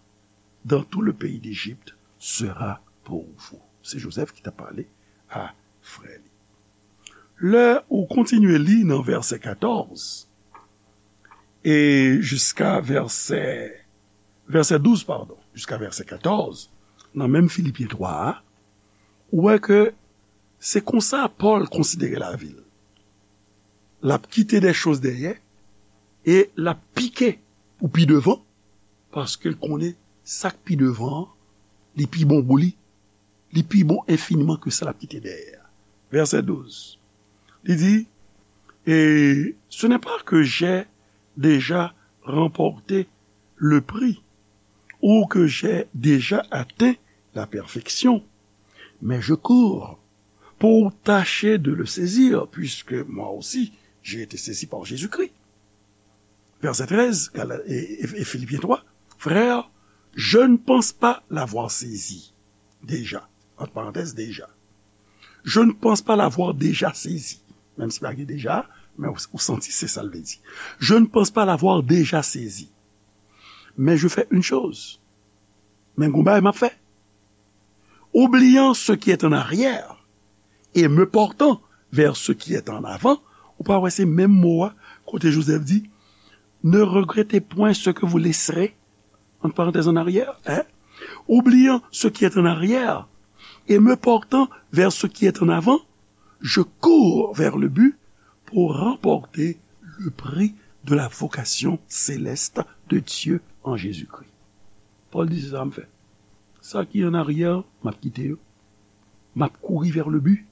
dans tout le pays d'Égypte sera pour vous. Se Joseph ki t ap pale a frè li. Lè ou kontinye li nan vèsè katòz e jiska vèsè, vèsè douz, padon, jiska vèsè katòz, nan menm Filipyen twa a, ou wè ke se konsa Pòl konsidere lavi l. L ap kite de choz dèyè e l ap pike pou pi devan, paske l konnen sa k pi devan an, li pi bon pou li, li pi bon enfiniman ke sa l ap kite dèyè a. Vèsè douz, li di, et ce n'est pas que j'ai déjà remporté le prix ou que j'ai déjà atteint la perfection, mais je cours pour tâcher de le saisir, puisque moi aussi j'ai été saisi par Jésus-Christ. Vèsè trèz, Gala- e, e, e Filipyen twa, frères, je ne pense pas l'avoir saisi déjà. Entre parenthèses, déjà. Je ne pense pas l'avoir déjà saisi. Menm si pa gen deja, men ou, ou santi se sa l vle di. Je ne pense pas l'avoir déjà saisi. Mais je fais une chose. Men gon bagay m ap fè. Oubliant ce qui est en arrière et me portant vers ce qui est en avant, ou pa wè se menm mo a kote Jozèf di, ne regrettez point ce que vous laisserez, entre parenthèses, en arrière, hein? Oubliant ce qui est en arrière et me portant vers ce qui est en avant, je cours vers le but pour remporter le prix de la vocation céleste de Dieu en Jésus-Christ. Pòl di, se sa m fè. Sa ki an aryè, m ap kite yo. M ap kouri vers le but.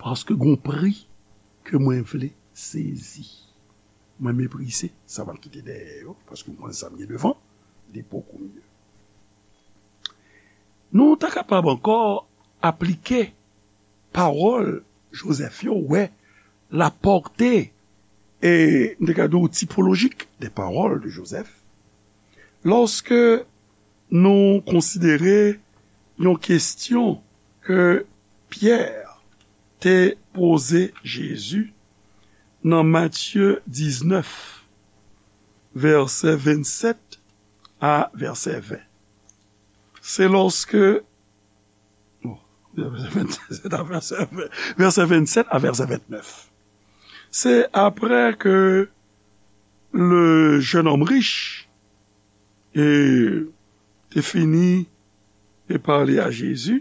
Paske gon pri ke mwen vle sezi. Mwen meprize sa m ap kite dèyè yo, paske m konnen sa m gen devan, li bokou mye. Nou ta kapab ankò aplike pawòl Jozèf yo, wè la pòte, e m te ka di w, tipolojik de pawòl de Jozèf. Lòske nou konsidere yon kesyon ke Pyè te poze Jezi nan Matye diznèf, vèsè vennsèt a vèsè ven. Se lòske, bon, vèsè vennsèt a vèsè ven, vèsè vennsèt a vèsè vennèf. Se apre ke le jeune homme riche e te fini e pale a Jezi,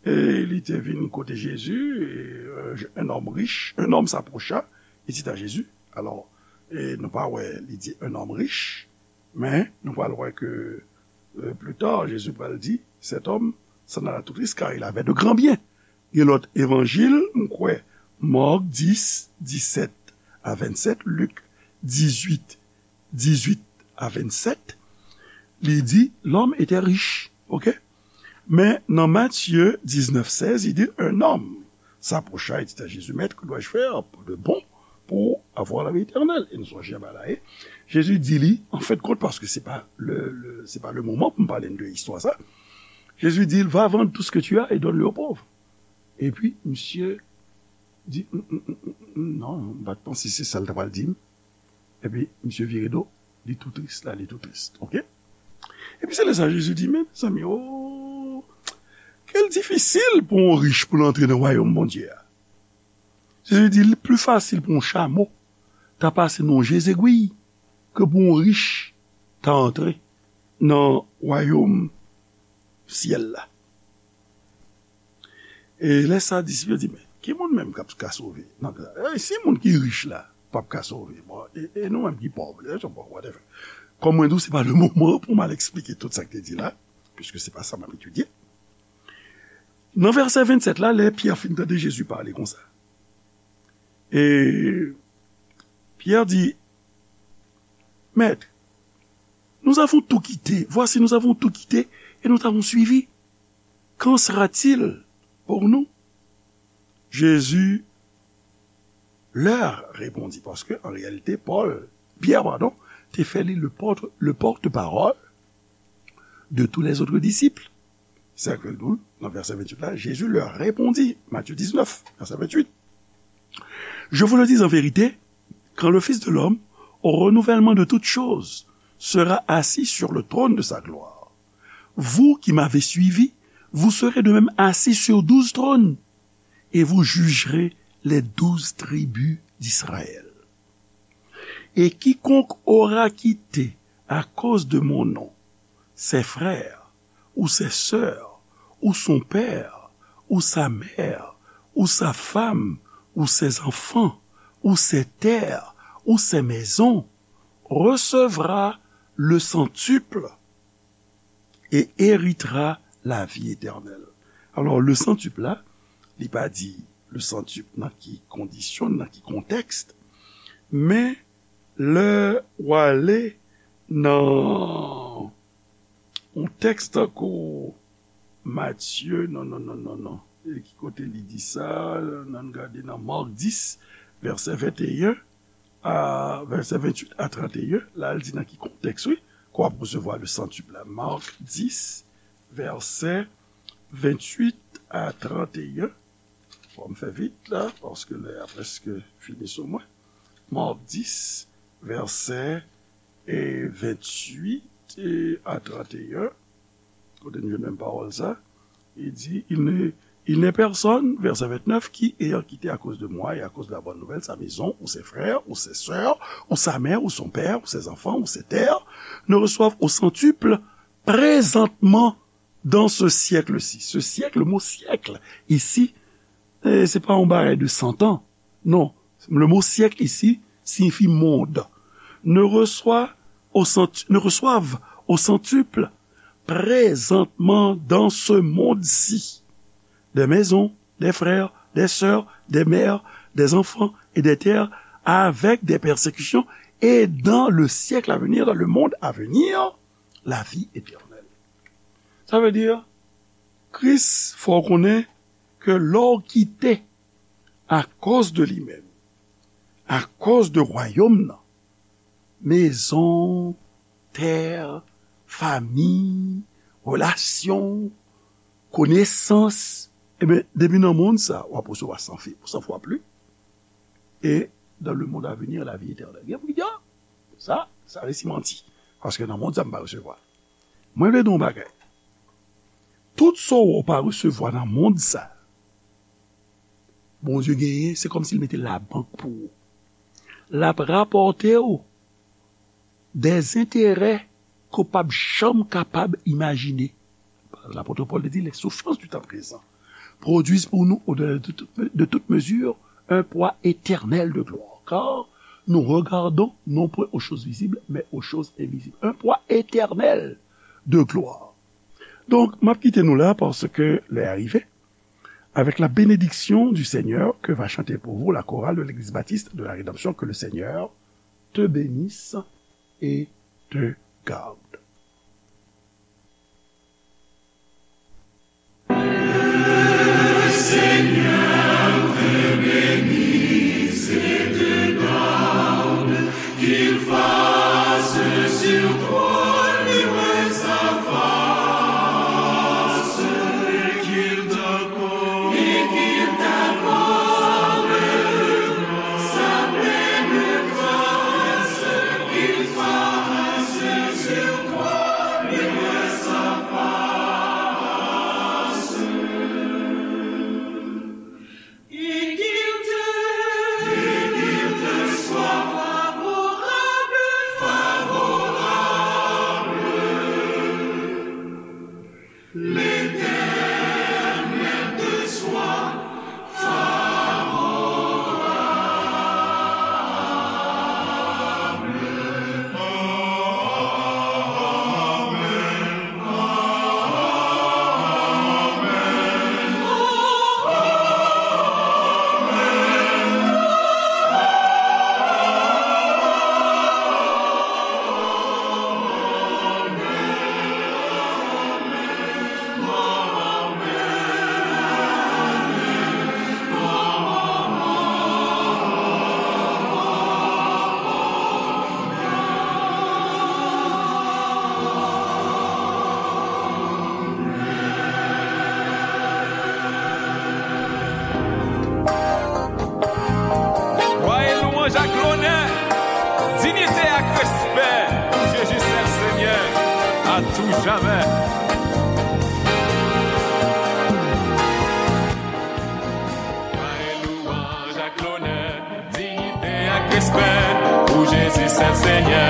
e li te vin kote Jezi, e, euh, un homme riche, un homme s'approcha, et dit à Jésus. Alò, e nou pa wè li di un homme riche, men nou pral wè ke, euh, plus tard, Jezi pral di, cet homme s'en alla tout triste car il avait de grands biens. Gen lòt evanjil, m kwè, Mak dis, disèt a vennsèt, Lik dizuit, dizuit a vennsèt, li di, l'homme était riche, ok? Men nan Matye diznèf sèz, li di, un homme s'approcha et dit à Jésus, Maître, que dois-je faire de bon pour avoir la vie éternelle? E nou sonje bagay la, e Jezi di li, an fen de kont, paske se pa le, le, se pa le moman pou m pale de istwa sa, Jezi di, va vendre tout ce que tu as et donne-le aux pauvres. Epi, misye di, "Mm, mm, mm, mm, mm, non, m pa t panse se sa l ta pral di m." Epi, misye vire do, li tou tris la, li tou tris. Ok? Epi se lè sa Jezi di, men, mezanmi, oh, kèl difisil pou yon rich pou l antre nan wayòm Bondye a. Jezi di, li pli fasil pou yon chamo ta pase nan yon je zegwi ke pou yon rich ta antre nan wayòm syèl la. E lè sa, disip yo di, men, ki moun menm k ap ka sove? Nan, e, si moun ki rich la p ap ka sove, bon, e, e nou menm ki pòv, e, bon, whatever. Kòm mwen di w, se pa le moman pou m al eksplike tout sa k te di la, piske se pa sa m ap etidye. Nan vèsè vennsèt la, lè Pyè fin tande Jezi pale konsa, e Pyè di, Maître, nous avons tout quitté. Voici, nous avons tout quitté et nous t'avons suivi. Qu'en sera-t-il pour nous? Jésus leur répondit, paske an reyalite, Pòl, Pyè, padon, te fè li le porte, le porte-parole de tous les autres disciples. Se sa k fè l di w, nan vèsè venntuit la, Jésus leur répondit, Matthieu dix-neuf, verset vingt-huit. Je vous le dis en vérité, quand le Fils de l'homme, au renouvellement de toutes choses, sera assis sur le trône de sa gloire, vous qui m'avez suivi, vous serez de même assis sur douze trônes, et vous jugerez les douze tribus d'Israël. Et quiconque aura quitté à cause de mon nom ses frères, ou ses sœurs, ou son père, ou sa mère, ou sa femme, ou ses enfants, ou ses terres, ou ses maisons, recevra le centuple et héritera la vie éternelle. Alò, le centuple la, li pa di le centuple nan ki kondisyon, nan ki kontèks, men lè w ale nan yon tèks tankou Matye, non, non, non, non, non. E ki kote li di sa? Ann gade nan Mak dis, vèsè venteyen a vèsè venntuit a tranteyen. La, l di nan ki kontèks, wi, ke w ap resevwa le centuple la. Mak dis, vèsè venntuit a tranteyen. Fò m fè vit la, paske lè a prèske fini sou mwen. Mak dis, vèsè, e, venntuit, e, a tranteyen. Kote n jwenn menm pawòl sa? Il dit, il n'est, il n'est personne, verset vingt-neuf, qui, ayant quitté à cause de moi et à cause de la bonne nouvelle sa maison, ou ses frères, ou ses sœurs, ou sa mère, ou son père, ou ses enfants, ou ses terres, ne reçoive au centuple présentement dans ce siècle-ci. Ce siècle, le mot siècle, ici, eh, se pa yon bagay de san tan. Non, le mot siècle ici signifie monde. Ne reçoit au cent-, ne reçoivent au centuple présentement dans ce monde-ci des maisons, des frères, des sœurs, des mères, des enfants et des terres avec des persécutions et dans le siècle à venir, dans le monde à venir, la vie éternelle. Sa vle di, Kris fè w konnen ke lè w kite akoz de li menm, akoz de wayòm nan, mezon, tè, fami, relasyon, konesans, ebyen, depi nan mond sa, w ap resevwa san fi-, san fwa plis. Et dans le monde à venir, la vie éternelle. Gen moun ki di, ah, sa, sa resi manti. Paske nan mond sa, m pa resevwa. Mwen vle di w yon bagay. Tout sa w pa resevwa nan mond sa, Bondye genyen, se kòmsi l mete labank pou ou. L ap rapòte w des intérêts ke w p ap janm kapab imajine. Lapot Pòl te di, les souffrances du temps présent produisent pour nous, au-delà de toute, de toute mesure, un poids éternel de gloire. Car nous regardons non point aux choses visibles, mais aux choses invisibles. Un poids éternel de gloire. Donk, m ap kite nou la paske lè a rive. Avec la bénédiction du Seigneur que va chanter pour vous la chorale de l'église baptiste de la rédemption, que le Seigneur te bénisse et te garde. Glwa e lwanj ak lonè, diyite ak respè pou Jezi sèl Senyè, a tou jamè. Glwa e lwanj ak lonè, diyite ak respè pou Jezi sèl Senyè,